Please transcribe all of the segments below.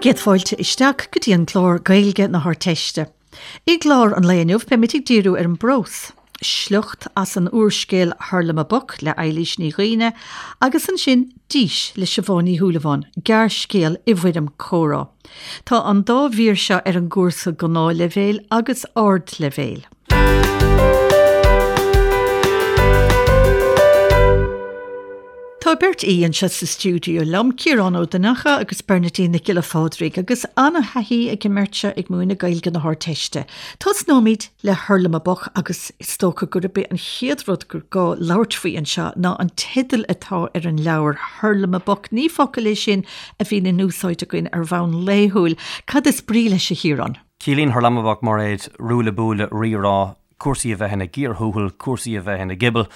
Céad fáilte isteach go dtí an clár Gaeilge na hArdteiste. I gclár an lae inniu beimid ag díriú ar an bprós, sliocht as an úrscéal Hurlamaboc le Eilís Ní Dhuibhne agus ansin Dís le Siobhán Ní Shúilleabháin, gearrscéal i bhfoirm comhrá. Tá an dá mhír seo ar an gcúrsa Gnáthleibhéil agus Ardleibhéil. Tá beirt aoi anseo sa stiúideo liom, Ciarán Ó Donnacha agus Bernadine Nic Giolla Phádraig, agus an-thaithí ag an mbeirt seo ag múineadh Gaeilge na hArdteiste. Tosnóimid le Hurlamaboc agus is dócha gurb é an chéad rud gur gá labhairt faoi anseo ná an teideal atá ar an leabhar, Hurlamaboc. Ní focal é sin a bhíonn in úsáid againn ar bhonn laethúil. Cad is brí leis, a Chiaráin? Ciallaíonn Hurlamaboc, Mairéad, ruaille buaille, rírá, cúrsaí a bheith ina gcíor thuathail, cúrsaí a bheith ina gcibeal,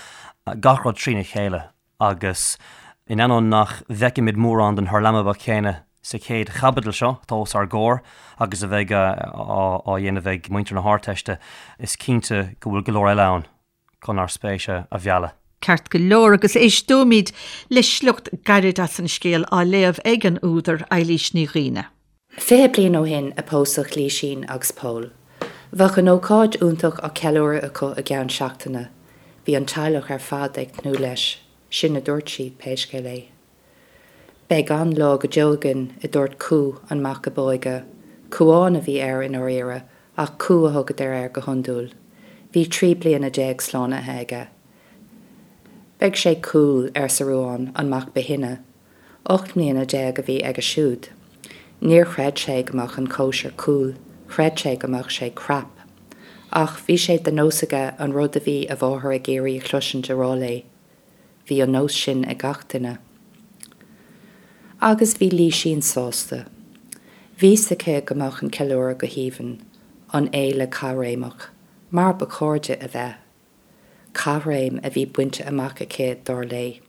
gach rud trína chéile agus in ainneoin nach bhfeicimid mórán den hurlamaboc céanna sa chéad chaibidil seo atá os ár gcomhair agus a bheidh á dhéanamh ag muintir na hArdteiste, is cinnte go bhfuil go leor eile ann chun ár spéis a mhealladh. Ceart go leor, agus éisteoimid le sliocht gairid as an scéal á léamh ag an údar, Eilís Ní Dhuibhne. 20 bliain ó shin a pósadh Lísín agus Pól. Bheadh an ócáid iontach á ceiliúradh acu i gceann seachtaine. Bhí an teaghlach ar fad ag tnúth leis, sin a dúirt siad, pé scéal é. Beidh an-lá go deo againn, a dúirt Cú, an mac ab óige. Cúán a bhí air i ndáiríre, ach Cú a thugadar air go hiondúil. Bhí 13 bliana slánaithe aige. Beidh sé cool, arsa Ruán, an mac ba shine. 18 mbliana a bhí aige siúd. Níor chreid sé go mbeadh an cóisir cool, chreid sé go mbeadh sé crap. Ach bhí sé de nós aige an rud a bhí a mháthair ag iarraidh a chloisint a rá léi. Bhí an nós sin ag gach duine. Agus bhí Lísín sásta. Bhí 'fhios aici go mbeadh an ceiliúradh go haoibhinn, an fhéile caithréimeach, mar ba chóir di a bheith. Caithréim a bhí bainte amach aici, dar léi.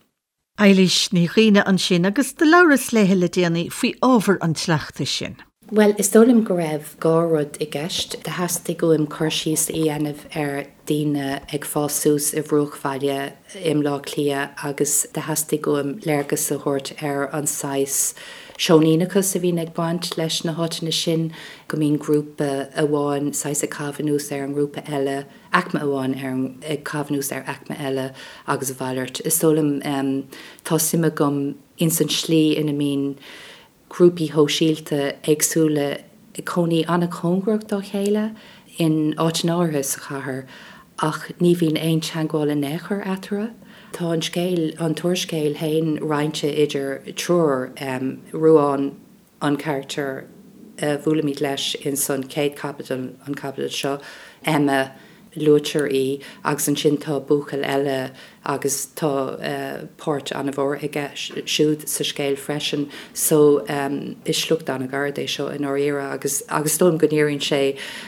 Eilís Ní Dhuibhne ansin agus do labhras léithe le déanaí faoi ábhar an tsleachta sin. Bhuel, is dóigh liom go raibh dhá rud i gceist. Do theastaigh uaim cur síos a dhéanamh ar daoine ag fás suas i bhruachbhaile i mBleá Cliath agus do theastaigh uaim léargas a thabhairt ar an saghas seoiníneachas a bhíonn ag baint leis na háiteanna sin, go mbíonn grúpa amháin saghas ag caitheamh anuas ar an ngrúpa eile. aicme amháin ar ag caitheamh anuas ar aicme eile agus a mhalairt. Is dóigh liom, tá suim agam ins an tslí ina mbíonn grúpaí shóisialta éagsúla ag cónaí an-chóngarach dá chéile in áiteanna áirithe sa chathair ach ní bhíonn aon teagmháil in aon chor eatarthu. Tá an scéal, an t-úrscéal féin roinnte idir triúr, Ruán, an carachtar a bhuailimid leis ins an chéad chaibidil, an chaibidil seo, Emma, luaitear í, agus ansin tá buachaill eile agus tá páirt an-mhór aige siúd sa scéal freisin. So, is sliocht an-ghairid é seo i ndáiríre agus agus is dóigh liom go ndíríonn sé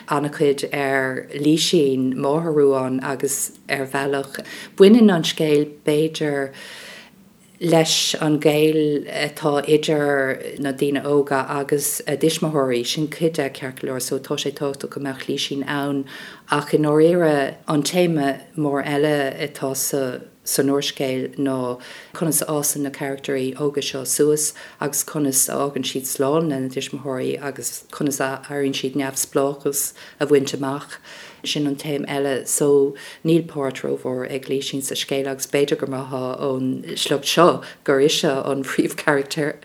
an-chuid ar Lísín, máthair Ruáin, agus ar bhealach baineann an scéal b'fhéidir, leis an ghaol atá idir na daoine óga agus a dtuismitheoirí. Sin cuid de, ceart go leor, so tá sé tábhachtach go mbeadh Lísín ann ach i ndáiríre an téama mór eile atá sa san úrscéal ná conas a fhásann na carachtairí óga seo suas agus conas a fhágann siad slán lena dtuismitheoirí agus conas a éiríonn siad neamhspleáchas a bhaint amach. Sin an téama eile. So, níl páirt rómhór ag Lísín sa scéal agus b'fhéidir go mbraithfeá ón sliocht seo gur ise an phríomhcharachtar.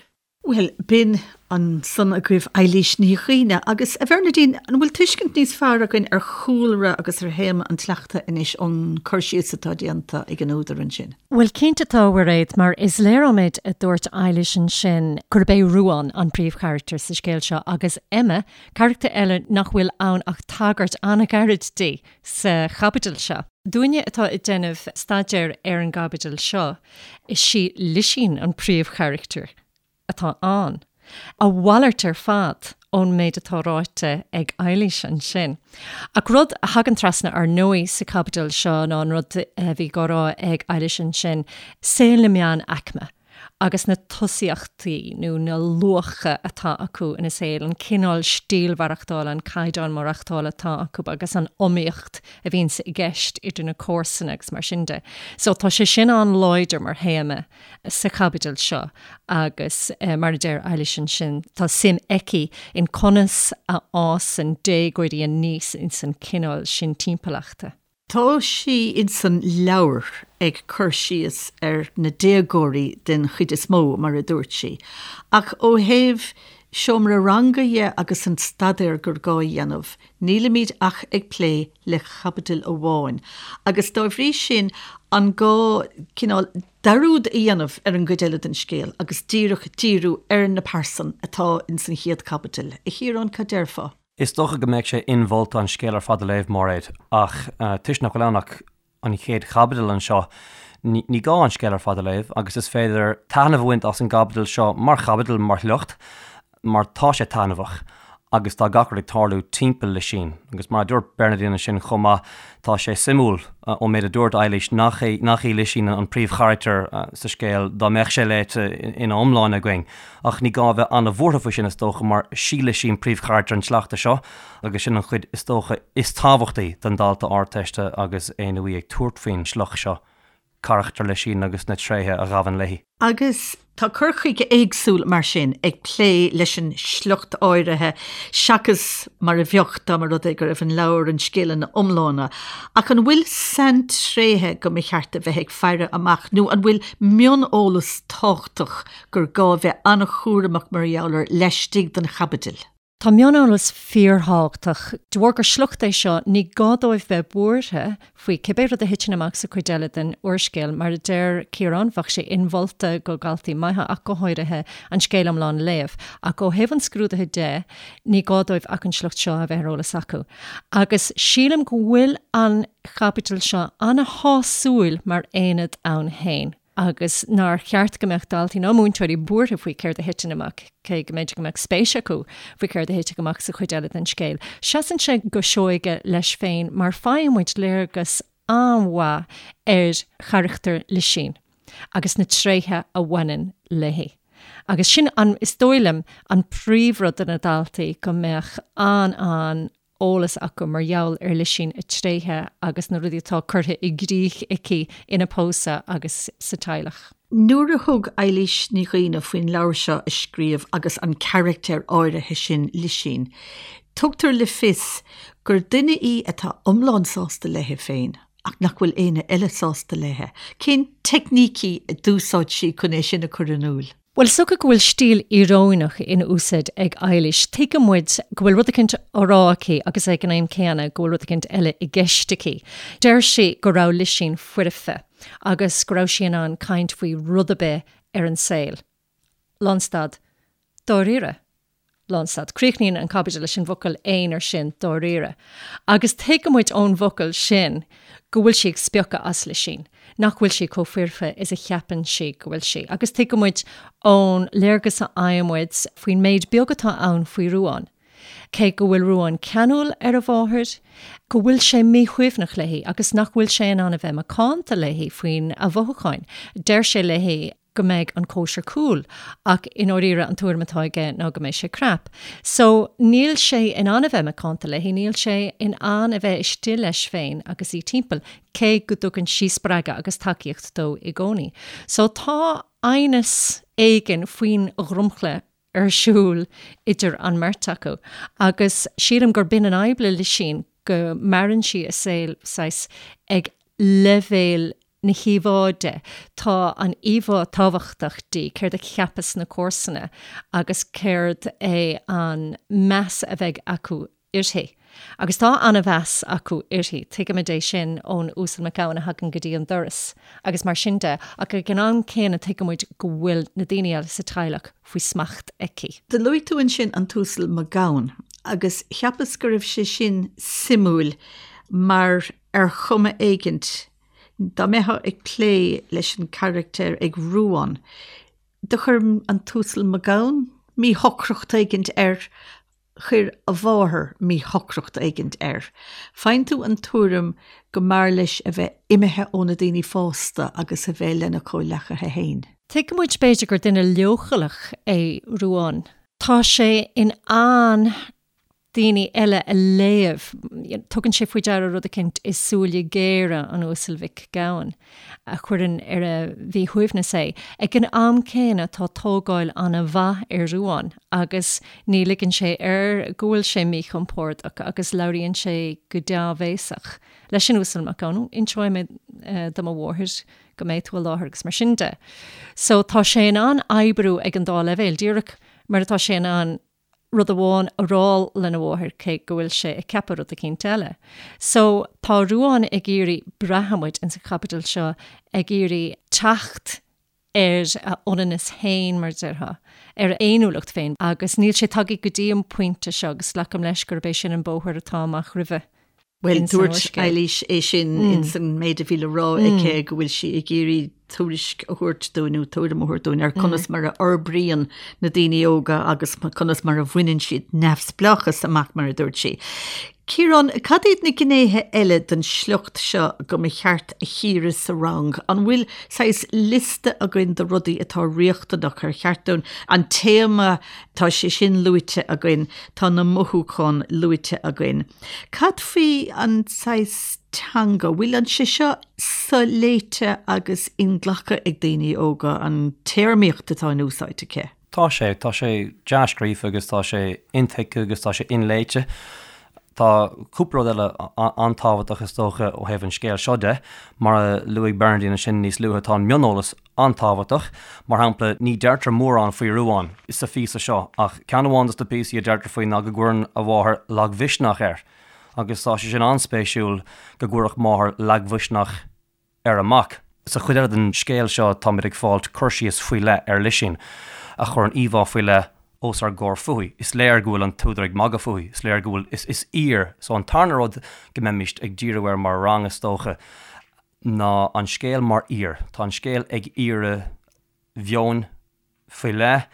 Bhuel, b'in ansan agaibh Eilís Ní Dhuibhne. Agus, a Bhernadine, an bhfuil tuiscint níos fearr againn ar chúlra agus ar théama an tsleachta anois ón cur síos atá déanta ag an údar ansin? Bhuel, cinnte tá, a Mhairéad, mar is léir ón méid a dúirt Eilís ansin gurb é Ruán an príomhcharachtar sa scéal seo agus Emma Carachtar eile nach bhfuil ann ach tagairt an-ghairid di sa chaibidil seo. Dúinne atá ag déanamh staidéir ar an gcaibidil seo, is í Lisín an príomhcharachtar atá ann. A mhalairt ar fad ón méid atá ráite ag Eilís ansin. Ach rud a thagann trasna ar ndóigh sa chaibidil seo ná an rud a bhí á rá ag Eilís ansin, saol na meánaicme. agus na tosaíochtaí nó na luacha atá acu ina saol, an cineál stíl mhaireachtála, an caighdeán maireachtála atá acu agus an iomaíocht a bhíonns i gceist idir na comharsana agus mar sin de. So tá sé sin an-láidir mar théama sa chaibidil seo agus mar a deir Eilís ansin, tá suim aici in conas a fhásann déagóirí aníos ins an cineál sin timpeallachta. Tá sí insan leabhar ag cur síos ar na déagóirí den chuid is mó, mar a dúirt sí, ach ó thaobh seomra ranga dhe agus an staidéar gur gá a dhéanamh, nílimid ach ag plé le caibidil amháin agus dá bhrí sin an gá cineál dearúd a dhéanamh ar an gcuid eile den scéal agus díreach díriú ar na pearsain atá insan chéad chaibidil. A Chiaráin, cad déarfá? Is dócha go mbeadh sé inmholta an scéal ar fad a léamh, Máiréad, ach toisc nach bhfuil ann ach an chéad chaibidil anseo, ní gá an scéal ar fad a léamh agus is féidir taitneamh a bhaint as an gcaibidil seo mar chaibidil, mar shliocht, mar tá sé taitneamhach agus tá gach rud ag tarlú timpeall Lisín. Agus mar a dúirt Bernadine ansin chomh maith, tá sé suimiúil ón méid a dúirt Eilís nach é nach í Lisín an príomhcharachtar sa scéal dá mbeadh sé léite ina iomláine againn. Ach ní gá a bheith an-bhuartha faoi sin, is dócha, mar sí Lisín príomhcharachtar an tsleachta seo, agus sin an chuid, is dócha, is tábhachtaí don dalta Ardteiste agus é nó í ag tabhairt faoin sliocht seo, carachtar Lisín agus na tréithe a ghabhann léi. Agus tá cur chuige éagsúil, mar sin, ag plé leis an sliocht áirithe seachas mar a bheadh dá mba rud é go raibh an leabhar, an scéal ina iomláine. Ach an bhfuil saintréithe go mba cheart a bheith ag faire amach nó an bhfuil mioneolas tábhachtach gur gá a bheith an-chúramach mar gheall air laistigh den chaibidil. Tá mioneolas fíorthábhachtach. De bharr gur sliocht é seo, ní gá dóibh bheith buartha faoi cibé rud a thiteann amach sa chuid eile den úrscéal. Mar a deir Ciarán, bheadh sé inmholta go dhaltaí maithe, ach go háirithe, an scéal iomlán a léamh. Ach ó thaobh an scrúdaithe de, ní gá dóibh ach an sliocht seo a bheith ar eolas acu. Agus sílim go bhfuil an chaibidil seo an-shásúil mar aonad ann féin. agus nár cheart go mbeadh daltaí ná múinteoirí buartha faoi céard a thiteann amach, cé go mb'fhéidir go mbeadh spéis acu faoi céard a thitfidh amach sa chuid eile den scéal. Seasann sé go seoighe leis féin mar faigheann muid léargas an-mhaith ar charachtar Lisín agus na tréithe a bhaineann léi. Agus sin an, is dóigh liom, an príomhrud do na daltaí, go mbeadh an-an eolas acu mar gheall ar Lisín, a tréithe agus na rudaí atá curtha i gcrích aici ina pósadh agus sa teaghlach. Nuair a thug Eilís Ní Dhuibhne faoin leabhar seo a scríobh agus an carachtar áirithe sin, Lisín, tugtar le fios gur duine í atá iomlán sásta léi féin ach nach bhfuil éinne eile sásta léi. Cén teicnící a d'úsáid sí chun é sin a chur in iúl? Bhuel, is dócha go bhfuil stíl íoróineach in úsáid ag Eilís. Tuigeann muid go bhfuil rud eicínt á rá aici agus ag an am céanna go bhfuil rud eicínt eile i gceist aici. Deir sí go raibh Lisín foirfe agus go raibh sí in ann caint faoi rud ar bith ar an saol. Lánstad. Dáiríre. Lánstad. Críochnaíonn an caibidil leis an bhfocal aonair sin, dáiríre. Agus tuigeann muid ón bhfocal sin go bhfuil sí ag spiocadh as Lisín. nach bhfuil sí chomh foirfe is a cheapann sí go bhfuil sí, agus tuigeann muid ón léargas a fhaigheann muid faoin méid beag atá ann faoi Ruán, cé go bhfuil Ruán ceanúil ar a mháthair, go bhfuil sé míshuaimhneach léi agus nach bhfuil sé in ann a bheith macánta léi faoina mhothúcháin. Deir sé léi go mbeidh an cóisir cool ach i ndáiríre an tuairim atá aige ná go mbeidh sé crap. So níl sé in ann a bheith macánta léi, níl sé in ann a bheith istigh leis féin agus í timpeall, cé go dtugann sí spreagadh agus tacaíocht dó i gcónaí. So tá aighneas éigin faoin dhromchla ar siúl idir an mbeirt acu agus sílim gur b'in an fhadhb le Lisín, go maireann sí a saol saghas ag leibhéal na híomhá de. Tá an íomhá tábhachtach di, céard a cheapfas na comharsana agus céard é an meas a bheidh acu uirthi. Agus tá an-mheas acu uirthi, tuigimid é sin ón Uasal Mac Gabhann a thagann go dtí an doras agus mar sin de, ach ag an am céanna tuigimid go bhfuil na daoine eile sa teaghlach faoi smacht aici. Do luaigh tú ansin an tUasal Mac Gabhann agus cheapas go raibh sé sin suimiúil mar ar chuma éigint, dá mbeifeá ag plé leis an charachtar ag Ruán, do chuir an tUasal Mac Gabhann míshocracht éigint air, chuir a mháthair míshocracht éigint air. Faigheann tú an tuairim go mb'fhearr leis a bheith imithe ó na daoine fásta agus a bheith lena chomhleacaithe féin. Tuigeann muid b'fhéidir gur duine leochaileach é Ruán. Tá sé in ann daoine eile a léamh. Tugann sé faoi deara rud eicínt i súile géara an Uasail Mhic Gabhann a chuireann ar a mhíshuaimhneas é. Ag an am céanna tá tógáil an-mhaith ar Ruán agus ní ligeann sé air go bhfuil sé míchompordach agus labhraíonn sé go dea-bhéasach leis an Uasal Mac Gabhann. Inseoidh mé do mo mháthair go mbeidh tú i láthair agus mar sin de. So tá sé in ann oibriú ag an dá leibhéal, díreach mar atá sé in ann rud amháin a rá lena mháthair cé go bhfuil sé ag ceapadh rud eicínt eile. So tá Ruán ag iarraidh, braitheann muid ins an chaibidil seo, ag iarraidh teacht ar a ionannas féin, mar a déarfá, ar a fhéiniúlacht féin agus níl sé tagtha go dtí an pointe seo agus glacaim leis gurb é sin an bóthar atá amach roimhe. Bhuel, dúirt Eilís é sin ins an méid a bhí le rá aici go bhfuil sí ag iarraidh tuairisc a thabhairt dúinn nó tuairim a thabhairt dúinn ar conas mar a fhorbraíonn na daoine óga agus conas mar a bhaineann siad neamhspleáchas amach mar a dúirt sí. Ciarán, cad iad na gnéithe eile den sliocht seo go mba cheart a chíoradh sa rang? An bhfuil saghas liosta againn de rudaí atá riachtanach ar cheart dúinn an téama, tá sé sin luaite againn, tá na mothúcháin luaite againn. Cad faoi an saghas teanga? Bhfuil an sé seo soléite agus inghlactha ag daoine óga, an téarmaíocht atá in úsáid aici? Tá sé. Tá sé dea-scríofa agus tá sé intuigthe agus tá sé inléite. Tá cúpla rud eile an-tábhachtach is dócha ó thaobh an scéil seo de. Mar a luaigh Bernadine ansin níos luaithe, tá an mioneolas an-tábhachtach. Mar shampla, ní deirtear mórán faoi Ruán sa phíosa seo ach ceann amháin de na píosaí a deirtear faoi ná go gcuireann a mháthair lagmhisneach air. Agus tá sé sin an-spéisiúil go gcuirfeadh máthair lagmhisneach ar a mac. Sa chuid eile den scéal seo táimid ag fáilt cur síos faoi leith ar Lisín, a chuireann íomhá faoi leith os ár gcomhair fúithi. Is léir go bhfuil an t-údar ag magadh fúithi, is léir go bhfuil, is, is aoir. So an tarna rud go mbeimis ag díriú air mar rang is dócha ná an scéal mar aoir. Tá an scéal ag iarraidh mheoin faoi leith.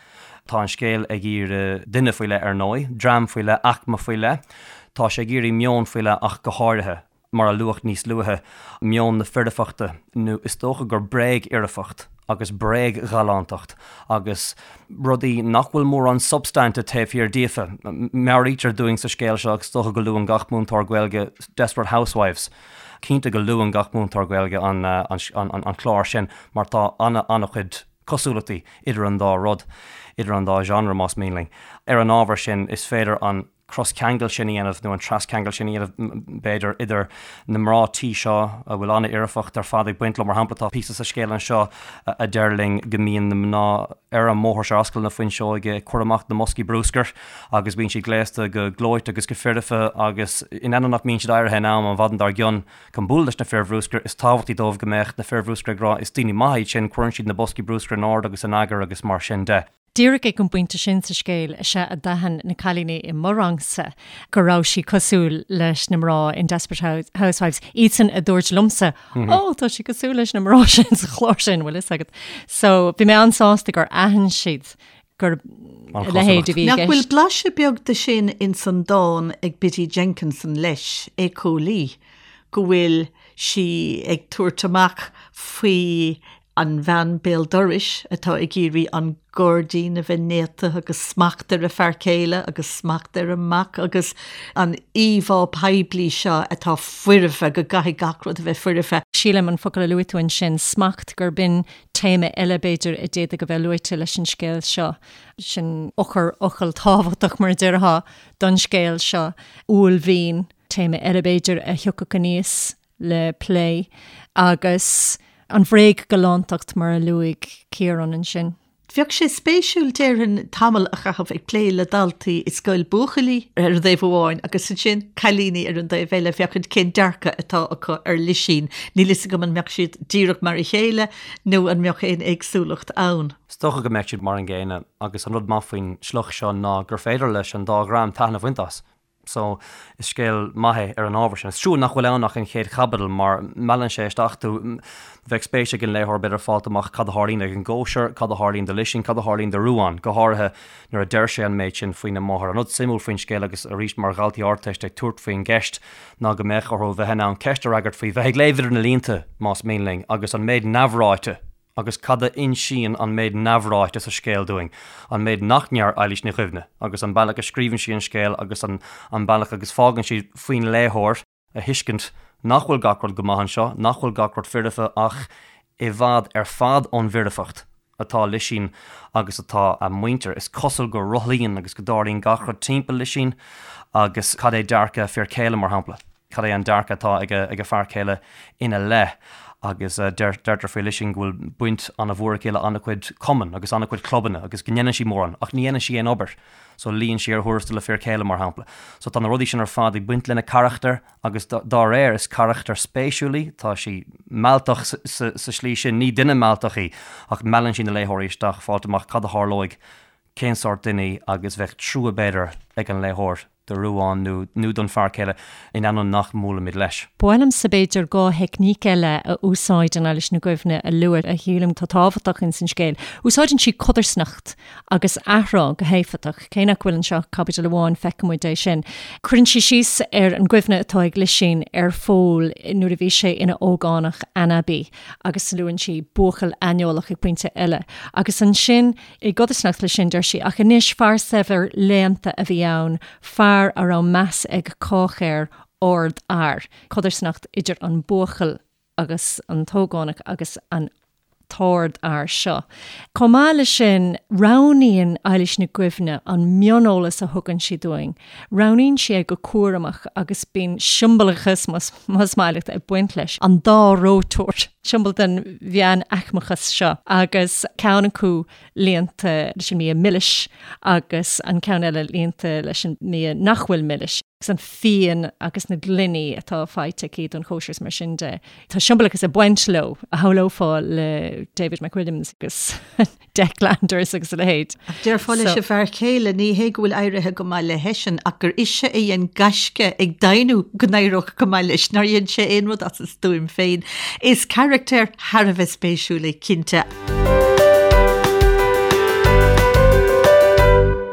Tá an scéal ag iarraidh duine faoi leith ar ndóigh, dream faoi leith, aicme faoi leith. Tá sé ag iarraidh meon faoi leith ach go háirithe, mar a luadh níos luaithe, meon na foirfeachta, nó is dócha gur bréagfhoirfeacht agus bréagghalántacht agus rudaí nach bhfuil mórán substainte taobh thiar díofa. Meabhraítear dúinn sa scéal seo, agus is dócha go luann gach múinteoir Gaeilge Desperate Housewives, cinnte go luann gach múinteoir Gaeilge an clár sin mar tá an-chuid cosúlachtaí idir an dá rud, idir an dá genre más mian linn. Ar an ábhar sin, is féidir an croscheangal sin a dhéanamh, nó an trascheangal sin a dhéanamh, b'fhéidir, idir na mná tí seo a bhfuil an-fhoirfeacht ar fad ag baint leo. Mar shampla, tá píosa sa scéal anseo a deir linn go mbíonn na mná ar an mbóthar seo, ar ascaill na Fuinseoige, ag cur amach na mboscaí bruscair agus bíonn siad gléasta go gleoite agus go foirfe agus in ainneoin nach mbíonn siad éirithe in am an mhaidin dár gcionn, Chun bualadh leis na fir bhruscair, is tábhachtaí dóibh go mbeadh na fir bhruscair ag rá 'is daoine maithe iad sin, cuireann siad na boscaí bruscair in ord agus in eagar agus mar sin de. Díreach ag an bpointe sin sa scéal is ea a d'aithin na cailíní i mo rangsa go raibh sí cosúil leis na mná in Desperate Housewives, iadsan a dúirt liomsa 'Ó, tá sí cosúil leis na mná sin sa chlár sin, bhfuil fhios agat. So, bhí mé an-sásta gur aithin siad gur a leithéid a bhí i Nach bhfuil gceist. blaiseadh beag de sin ins an dán ag Biddy Jenkinson leis, Éiceolaí, go bhfuil sí ag tabhairt amach faoi an bhean béal dorais atá ag iarraidh an gairdín a bheith néata agus smacht ar a fear céile agus smacht ar a mac agus an íomhá poiblí seo atá foirfe, go gcaithfidh gach rud a bheith foirfe. Sílim an focal a luaigh tú ansin, smacht, gurb in téama eile, b'fhéidir, a d'fhéadfadh a bheith luaite leis an scéal seo. Sin eochairfhocal tábhachtach, mar a déarfá, don scéal seo. Uaillmhian, téama eile, b'fhéidir, a thiocfadh aníos le plé. Agus an bhréagghalántacht, mar a luaigh Ciarán ansin. Bheadh sé spéisiúil, déarfainn, tamall a chaitheamh ag plé le daltaí i scoil buachaillí ar an dtaobh amháin agus ansin cailíní ar an dtaobh eile féachaint cén dearcadh atá acu ar Lisín. Níl fhios agam an mbeadh siad díreach mar a chéile nó an mbeadh aon éagsúlacht ann. Is dócha go mbeadh siad mar an gcéanna agus an rud maith faoin sliocht seo ná gur féidir leis an dá dhream taitneamh a bhaint as. So, is scéal maith é ar an ábhar sin. Is trua nach bhfuil ann ach an chéad chaibidil mar meallann sé isteach tú. Bheadh spéis ag an léitheoir b'fhéidir fáilt amach cad a tharlaíonn ag an gcóisir, cad a tharlaíonn do Lisín, cad a tharlaíonn do Ruán, go háirithe nuair a deir sé an méid sin faoina máthair. An rud suimiúil faoin scéal agus arís mar dhaltaí Ardteiste ag tabhairt faoin gceist ná go mbeadh orthu bheith in ann ceist a fhreagairt faoi bheith ag léamh idir na línte, más mian linn, agus an méid neamhráite. Agus cad a insíonn an méid neamhráite sa scéal dúinn, an méid nach ndeir Eilís Ní Dhuibhne, agus an bealach a scríobhann sí an scéal agus an bealach agus fágann sí faoin léitheoir a thuiscint nach bhfuil gach rud go maith anseo, nach bhfuil gach rud foirfe ach i bhfad ar fad ón bhfoirfeacht atá Lisín agus atá a muintir. Is cosúil go rothlaíonn agus go dtarlaíonn gach rud timpeall Lisín agus cad é dearcadh a fir céile, mar shampla? Cad é an dearcadh atá ag a fear céile ina leith? Agus deirtear faoi Lisín go bhfuil baint an-mhór aici le an-chuid cumann agus an-chuid clubanna agus go ndéanann sí mórán ach ní dhéanann sí aon obair. So luíonn sí ar thuarastal a fir céile, mar shampla. So tá na rudaí sin ar fad ag baint lena carachtar agus dá réir is carachtar spéisiúil í. Tá sí mealltach sa slí sin. Ní duine mealltach í ach meallann sí na léitheoirí isteach fáilt amach cad a tharlóidh, cén sórt duine í agus bheadh trua b'fhéidir ag an léitheoir. do Ruán nó nó don fear céile, in ainneoin nach mbuailimid leis. Ba mhaith liomsa b'fhéidir 2 theicníc eile a úsáideann Eilís Ní Dhuibhne a lua a shílim atá tábhachtach ins an scéal. Úsáideann sí codarsnacht agus athrá go héifeachtach. Cé nach bhfuil anseo ach caibidil amháin feiceann muid é sin. Cuireann sí síos ar an gcuimhne atá ag Lisín ar Phól nuair a bhí sé ina ógánach anabaí agus luann sí buachaill aineolach ag pointe eile. Agus ansin I gcodarsnacht leis sin, deir sí, ach anois, fear saibhir léannta a bhí ann, fear a raibh meas ag cách air, ardfhear. Codarsnacht idir an buachaill agus an t-ógánach agus an t-ardfhear seo. Chomh maith leis sin, roghnaíonn Eilís Nic Dhuibhne an mioneolas a thugann sí dúinn. Roghnaíonn sí é go cúramach agus bíonn siombalachas, más maith leat, ag baint leis. An dá reoiteoir, siombail den mheánaicmeachas seo, agus ceann acu líonta leis an mbia milis agus an ceann eile líonta leis an mbia nach bhfuil milis, agus an fíon agus na gloiní atá faighte aici don chóisir is mar sin de. Tá siombalachas ag baint leo, a shamhlófá le David McWilliams agus. Declanders agus a leithéid. Ach déarfá leis an bhfear céile, ní hé go bhfuil éirithe go maith leisean, ach gur ise a dhein gaisce ag deimhniú go n-éireodh go maith leis, nár dhein sé aon rud as a stuaim féin. Is carachtar thar a bheith spéisiúil é, cinnte.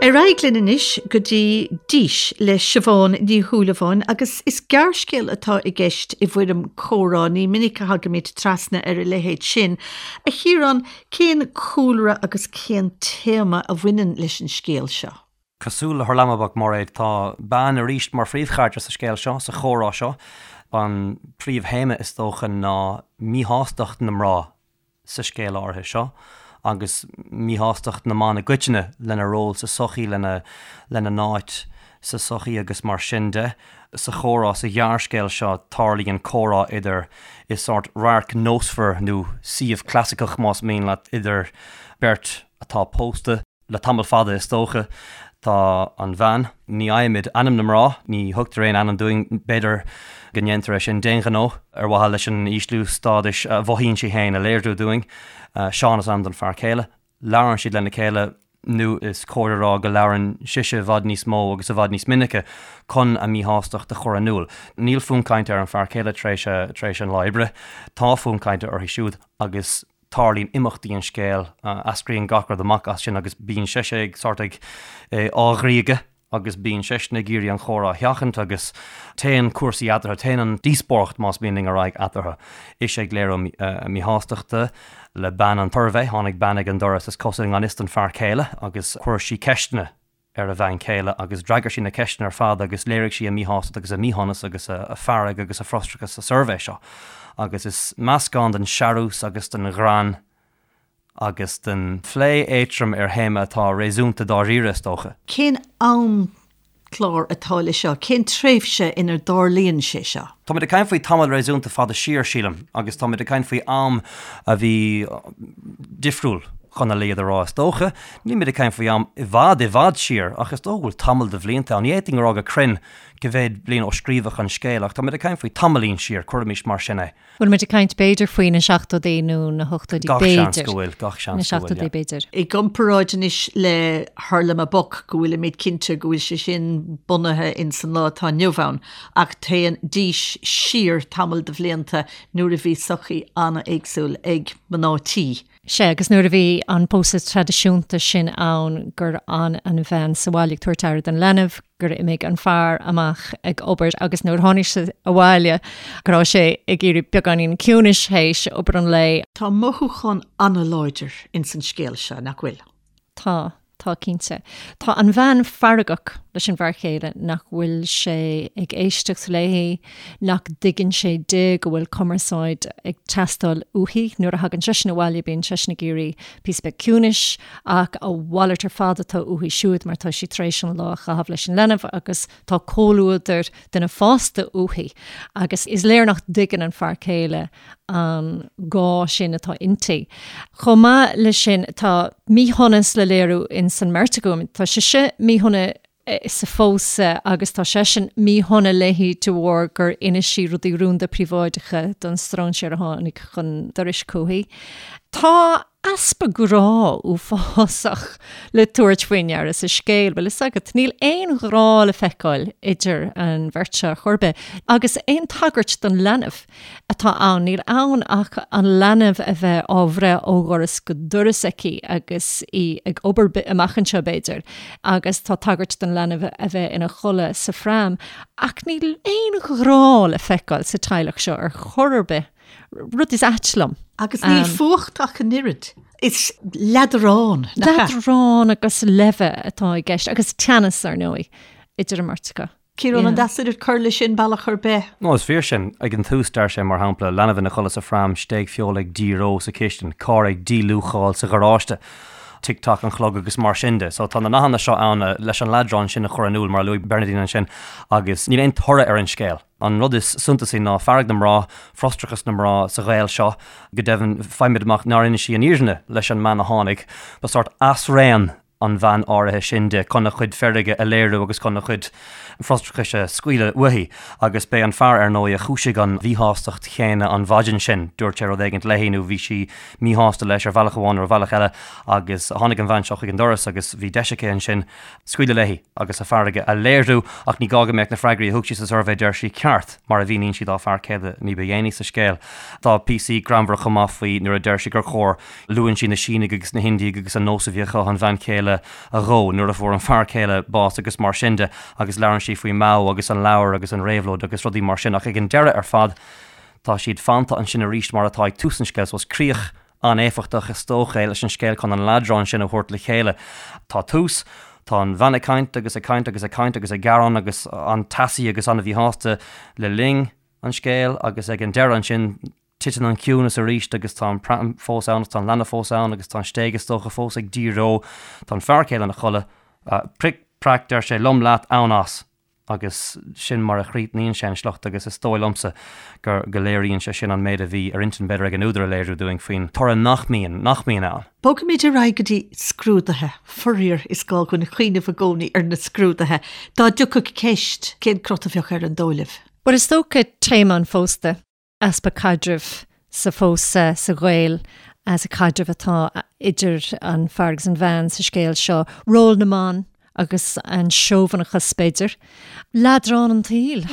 Ar aghaidh linn anois go dtí Dís le Siobhán Ní Shúilleabháin agus is gearrscéal atá i gceist i bhfoirm comhrá, ní minic a thagaimid trasna ar a leithéid sin. A Chiaráin, Cén cúlra agus cén téama a bhaineann leis an scéal seo? Cosúil le Hurlamaboc, Mairéad, tá bean arís mar phríomhcharachtar sa scéal seo, sa chomhrá seo. An príomhthéama, is dócha, ná míshástacht na mná sa scéal áirithe seo agus míshástacht na mban i gcoitinne lena ról sa tsochaí, lena n-áit sa tsochaí agus mar sin de. Sa chomhrá sa ghearrscéal seo, tarlaíonn comhrá idir, i sórt radharc nósmhar nó suíomh clasaiceach más mian leat, idir beirt atá pósta le tamall fada is dócha. Tá an bhean, ní fhaighimid ainm na mná, ní thugtar aon ainm dúinn, b'fhéidir go ndéantar é sin d'aon ghnó ar mhaithe leis an ísliú stádais a mhothaíonn sí féin a léiriú dúinn. Seán is ainm don fear céile. Labhrann siad lena chéile, nó is cóir a rá go labhrann sise i bhfad níos mó agus i bhfad níos minice chun a míshástacht a chur in iúl. Níl fonn cainte ar an fear céile tar éis tar éis an lá oibre. Tá fonn cainte uirthi siúd agus tarlaíonn imeachtaí an scéil, eascraíonn gach rud amach as sin agus bíonn sise ag sórt ag á ghriogadh. agus bíonn seisean ag iarraidh an chomhrá a sheachaint agus téann cúrsaí eatarthu, téann an díospóireacht más mian linn ar aghaidh eatarthu. Ise ag léiriú a míshástachta le bean an tsuirbhé, tháinig bean ag an doras is cosúil i ngan fhios don fear céile agus chuir sí ceisteanna ar a bhean chéile agus d'fhreagair sí na ceisteanna ar fad agus léirigh sí a míshástacht agus a míshonas agus a fearg agus a frustrachas sa suirbhé seo agus is meascán den searús agus den ghreann agus den phlé éadtrom ar théama atá réasúnta dáiríre, is dócha. Cén amchlár atá leis seo? Cén tréimhse inar dtarlaíonn sé seo? Táimid ag caint faoi tamall réasúnta fada siar, sílim, agus táimid ag caint faoi am a bhí difriúil, chun a laghad a rá, is dócha. Nílimid ag caint faoi am i bhfad, i bhfad siar, ach is dócha go bhfuil tamall de bhlianta ann. Ní fhéadfainn a rá go cruinn cá mhéad bliain ó scríobhadh an scéal, ach táimid ag caint faoi tamaillín siar, cuirimis mar sin é. Bhfuil muid ag caint b'fhéidir faoi na seachtóidí nó na hochtóidí Gach seans b'fhéidir. go bhfuil, gach seans Na go bhfuil, seachtóidí yeah. b'fhéidir. I gcomparáid anois le Hurlamaboc go bhfuilimid cinnte go bhfuil sé sin bunaithe ins an lá atá inniu ann ach téann Dís siar tamall de bhlianta nuair a bhí sochaí an-éagsúil ag mná tí. Sea, agus nuair a bhí an pósadh traidisiúnta sin ann gur fhan an bhean sa bhaile ag tabhairt aire don leanbh, gur imigh an fear amach ag obair agus nuair a tháinig sé abhaile go raibh sé ag iarraidh beagáinín ciúnais théis obair an lae. Tá mothúchán an-láidir ins an scéal seo, nach bhfuil? Tá, tá cinnte. Tá an bhean feargach leis an bhfear céile nach bhfuil sé ag éisteacht léi, nach dtuigeann sé di go bhfuil cumarsáid ag teastáil uaithi. Nuair a thagann seisean abhaile bíonn seisean ag iarraidh píosa beag ciúnais ach a mhalairt ar fad atá uaithi siúd mar tá sí tar éis an lá a chaitheamh leis an leanbh agus tá comhluadar duine fásta uaithi agus is léir nach dtuigeann an fear céile an gá sin atá inti. Chomh maith leis sin, tá míshonas le léiriú ins an mbeirt acu. Tá sise míshona sa phósadh agus tá seisean míshona léi de bharr gur inis sí rudaí rúnda príobháideacha don stróinséir a tháinig chun dorais chuici. Tá easpa grá uafásach le tabhairt faoi ndeara sa scéal, bhfuil fhios agat. Níl aon ghrá le feiceáil idir an bheirt seo ar chor ar bith, agus aon tagairt don leanbh atá ann, níl ann ach an leanbh a bheith á bhreith ó dhoras go doras aici agus í ag obair amach anseo, b'fhéidir, agus tá tagairt don leanbh a bheith ina chodladh sa phram, ach níl aon ghrá le feiceáil sa teaghlach seo ar chor ar bith. Rud is ait liom. Agus níl fuacht ach an oiread. Is leadrán, nach ea? Leadrán agus leimhe atá i gceist, agus teannas, ar ndóigh, idir an mbeirt acu. Ciarán, an deas duit cur leis sin bealach ar bith? No, is fíor sin. Ag an tús, deir sé, mar shampla, leanbh ina chodladh sa phram, stéig feola ag díreo sa chistin, carr ag díluacháil sa gharáiste, tic tac an chlog agus mar sin de. So tá na nathanna seo ann leis an leadrán sin a chur in iúl, mar a luaigh Bernadine ansin, agus níl aon toradh ar an scéal. An rud is suntasaí ná fearg na mná, frustrachas na mná sa ghaol seo. Go deimhin, faighimid amach nár inis sí an fhírinne leis an mbean a tháinig. Ba sórt asraon an bhean áirithe sin di chun a cuid feirge a léiriú agus chun a cuid frustrachais a scaoileadh uaithi. Agus b'é an fear, ar ndóigh, a chúisigh an mhíshástacht chéanna an mhaidin sin. Dúirt sé rud éigint léi nó bhí sí míshásta leis ar bhealach amháin nó ar bhealach eile agus tháinig an bhean seo chuig an doras agus bhí deis aici ansin scaoileadh léi agus a fearg a léiriú, ach ní gá go mbeadh na freagraí a thug sí sa suirbhé, deir sí, ceart, mar a mhíníonn sí dá fear céile ní ba dhéanaí sa scéal. Tá píosaí greannmhara chomh maith faoi nuair a deir sí gur chóir, luann sí na Sínigh agus na hIndiaigh agus an nós a bhí acu an bhean chéile a dhó nuair a fuair an fear céile bás agus mar sin de agus labhrann sí faoi Mao agus an leabhar agus an réabhlóid agus rudaí mar sin ach ag an deireadh ar fad tá siad fanta ansin arís mar atá ag tús an scéil so is críoch an-éifeachtach is dócha é leis an scéal chun an leadrán sin a thabhairt le chéile. Tá tús, tá an bhean ag caint agus ag caint agus ag caint agus ag gearán agus an-teasaí agus an-mhíshásta le linn an scéil agus ag an deireadh ansin titeann an ciúnas arís agus tá an pram fós ann agus tá an leanbh fós ann agus tá an stéig is dócha fós ag díreo. Tá an fear céile ina chodladh. Pric, prac, deir sé, lom leat, ann as. agus sin mar a chríochnaíonn sé an sliocht agus is dóigh liomsa gur go léiríonn sé sin an méid a bhí ar intinn b'fhéidir ag an údar a léiriú dúinn faoin toradh nach mbíonn, nach mbíonn ann. Bogfaimid ar aghaidh go dtí scrúduithe. Faraor, is gá dhúinn cuimhneamh i gcónaí ar na scrúduithe. Dá dtiocfadh ceist, cén crot a bheadh air an dóigh libh? Bhuel, is dócha téama an phósta. easpa caidrimh sa phósadh, sa ghaol, sa chaidreamh atá idir an fear agus an bhean sa scéal seo, ról na mban agus an seobhanachas, b'fhéidir. Leadrán an tsaoil,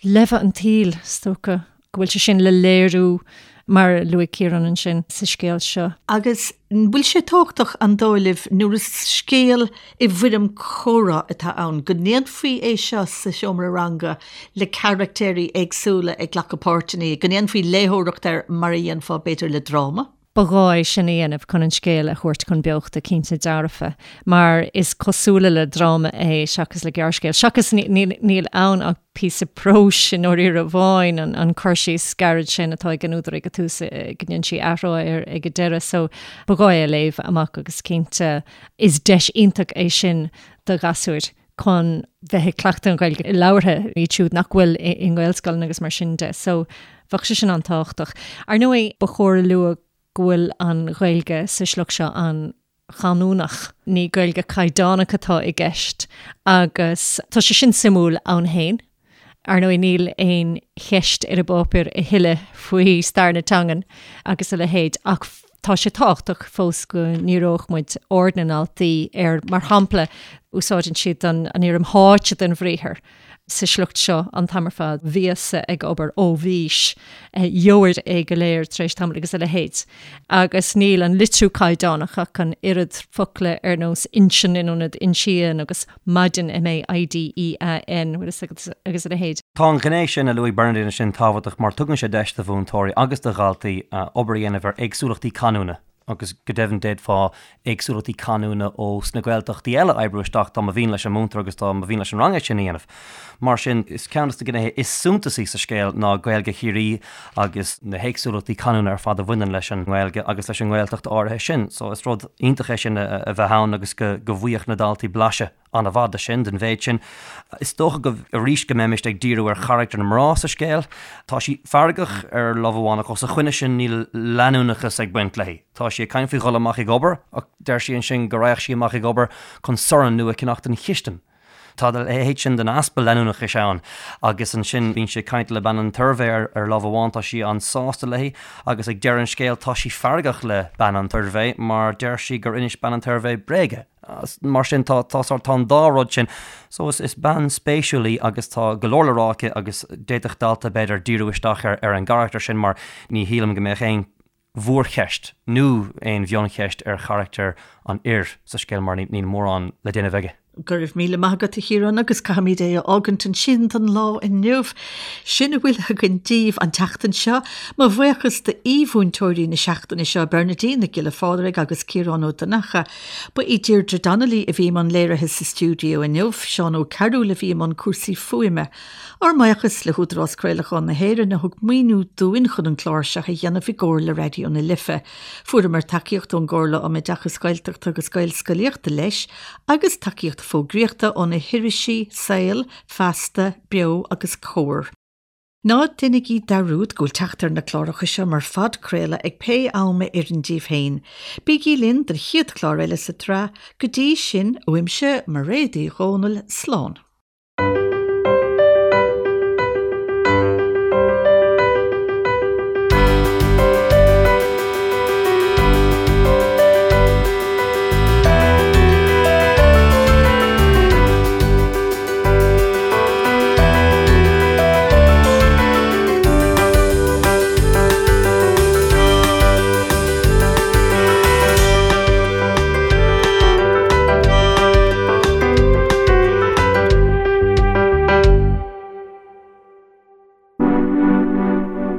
leimhe an tsaoil, is dócha go bhfuil sé sin le léiriú, mar a luaigh Ciarán ansin, sa scéal seo. Agus an bhfuil sé tábhachtach, an dóigh libh, nuair is scéal i bhfoirm comhrá atá ann, go ndéanfaí é seo sa seomra ranga le carachtéirí éagsúla ag glacadh páirteanna, go ndéanfaí léitheoireacht air mar a dhéanfá, b'fhéidir, le dráma? Ba ghá é sin a dhéanamh chun an scéal a thabhairt chun beochta, cinnte dearfa, mar is cosúla le dráma é seachas le gearrscéal. Seachas níl ann ach píosa próis i ndáiríre amháin, an cur síos gairid sin atá ag an údar ag an tús, go ndéanann sí athrá air ag an deireadh. So ba ghá é a léamh amach agus cinnte is deis iontach é sin do ghasúir chun bheith ag cleachtadh an Ghaeilge labhartha, iad siúd nach bhfuil i nGaelscoileanna agus mar sin de. So bheadh sé sin an-tábhachtach. Ar ndóigh, ba chóir a lua go bhfuil an Ghaeilge sa sliocht seo an-chanúnach, ní Gaeilge caighdeánach atá i gceist agus tá sé sin suimiúil ann féin. Ar ndóigh, níl aon cheist ar an bpáipéar a thuilleadh faoi stair na teangan agus a leithéid ach tá sé tábhachtach fós go ndíreodh muid aird na ndaltaí ar, mar shampla, Úsáideann siad an fhoirm tháite den bhriathar sa sliocht seo an t-am ar fad, bhíos-sa ag obair, ó bhís, gheobhair é go léir tar éis tamaill agus a leithéid. Agus níl an litriú caighdeánach ach an oiread, focla ar nós inseann in ionad insíonn agus maidin, M-A-I-D-E-A-N, bhfuil fhios agat, agus a leithéid. Tá an ghné sin a luaigh Bernadine ansin tábhachtach mar tugann sé deis do mhúinteoirí agus do dhaltaí obair a dhéanamh ar éagsúlachtaí canúna. agus go deimhin d'fhéadfá éagsúlachtaí canúna ó sna Gaeltachtaí eile a oibriú isteach dá mba mhian leis an múinteoir agus dá mba mhian leis an rang é sin a dhéanamh. Mar sin, is ceann de na gnéithe is suntasaí sa scéal ná Gaeilge Chiarraí agus na héagsúlachtaí canúna ar fad a bhaineann leis an nGaeilge agus leis an nGaeltacht áirithe sin. So is rud iontach é sin a bheith ann agus go bhfaigheadh na daltaí blaiseadh an-mhaith de sin, den mhéid sin. Is dócha go, arís, go mbeimist ag díriú ar charachtar na mná sa scéal. Tá sí feargach ar lámh amháin ach os a choinne sin níl leanúnachas ag baint léi. Tá sí ag caint faoi dhul amach ag obair ach deir sí ansin go raghadh sí amach ag obair chun sorn nua a cheannach don chistin. Tá a leithéid sin den easpa leanúnachais ann agus ansin bíonn sí ag caint le bean an tsuirbhé ar lámh amháin, tá sí an-sásta léi agus ag deireadh an scéil tá sí feargach le bean an tsuirbhé mar deir sí gur inis bean an tsuirbhé bréaga. Mar sin tá tá sórt tá an dá rud sin. So is is bean spéisiúil í agus tá go leor le rá aici agus d'fhéadfadh dalta b'fhéidir díriú isteach ar ar an gcarachtar sin mar ní shílim go mbeadh aon mhórcheist nó aon mhioncheist ar charachtar an fhir sa scéal mar níl mórán le déanamh aige. Go raibh míle maith agat a Chiaráin agus caithfimid é a fhágaint ansin don lá inniu. Sin a bhfuil againn daoibh an tseachtain seo. Mo bhuíochas d'aoi-mhúinteoirí na seachtaine seo, Bernadine Nic Giolla Phádraig agus Ciarán Ó Donnchadha. Ba í Deirdre Donnelly a bhí i mbun léirithe sa stiúideo inniu, Seán Ó Cearúil a bhí i mbun cúrsaí fuaime. Ár mbuíochas le hÚdarás Craolacháin na hÉireann a thug maoiniú dúinn chun an clár seo a dhéanamh i gcomhar le Raidió na Life. Fuaireamar tacaíocht ón gComhairle um Oideachas Gaeltachta agus Gaelscolaíochta leis agus tacaíocht fógraíochta ó na hirisí Saol, Feasta, Beo agus Comhar. Ná déanaigí dearúd go bhfuil teacht ar na cláracha seo mar phodchraoladh ag pé am a oireann daoibh féin. Bígí linn don chéad chlár eile sa tsraith. Go dtí sin, uaimse, Mairéad Uí Dhomhnaill, slán.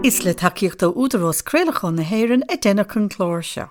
Is le tacaíocht ó Údarás Craolacháin na hÉireann a deineadh an clár seo.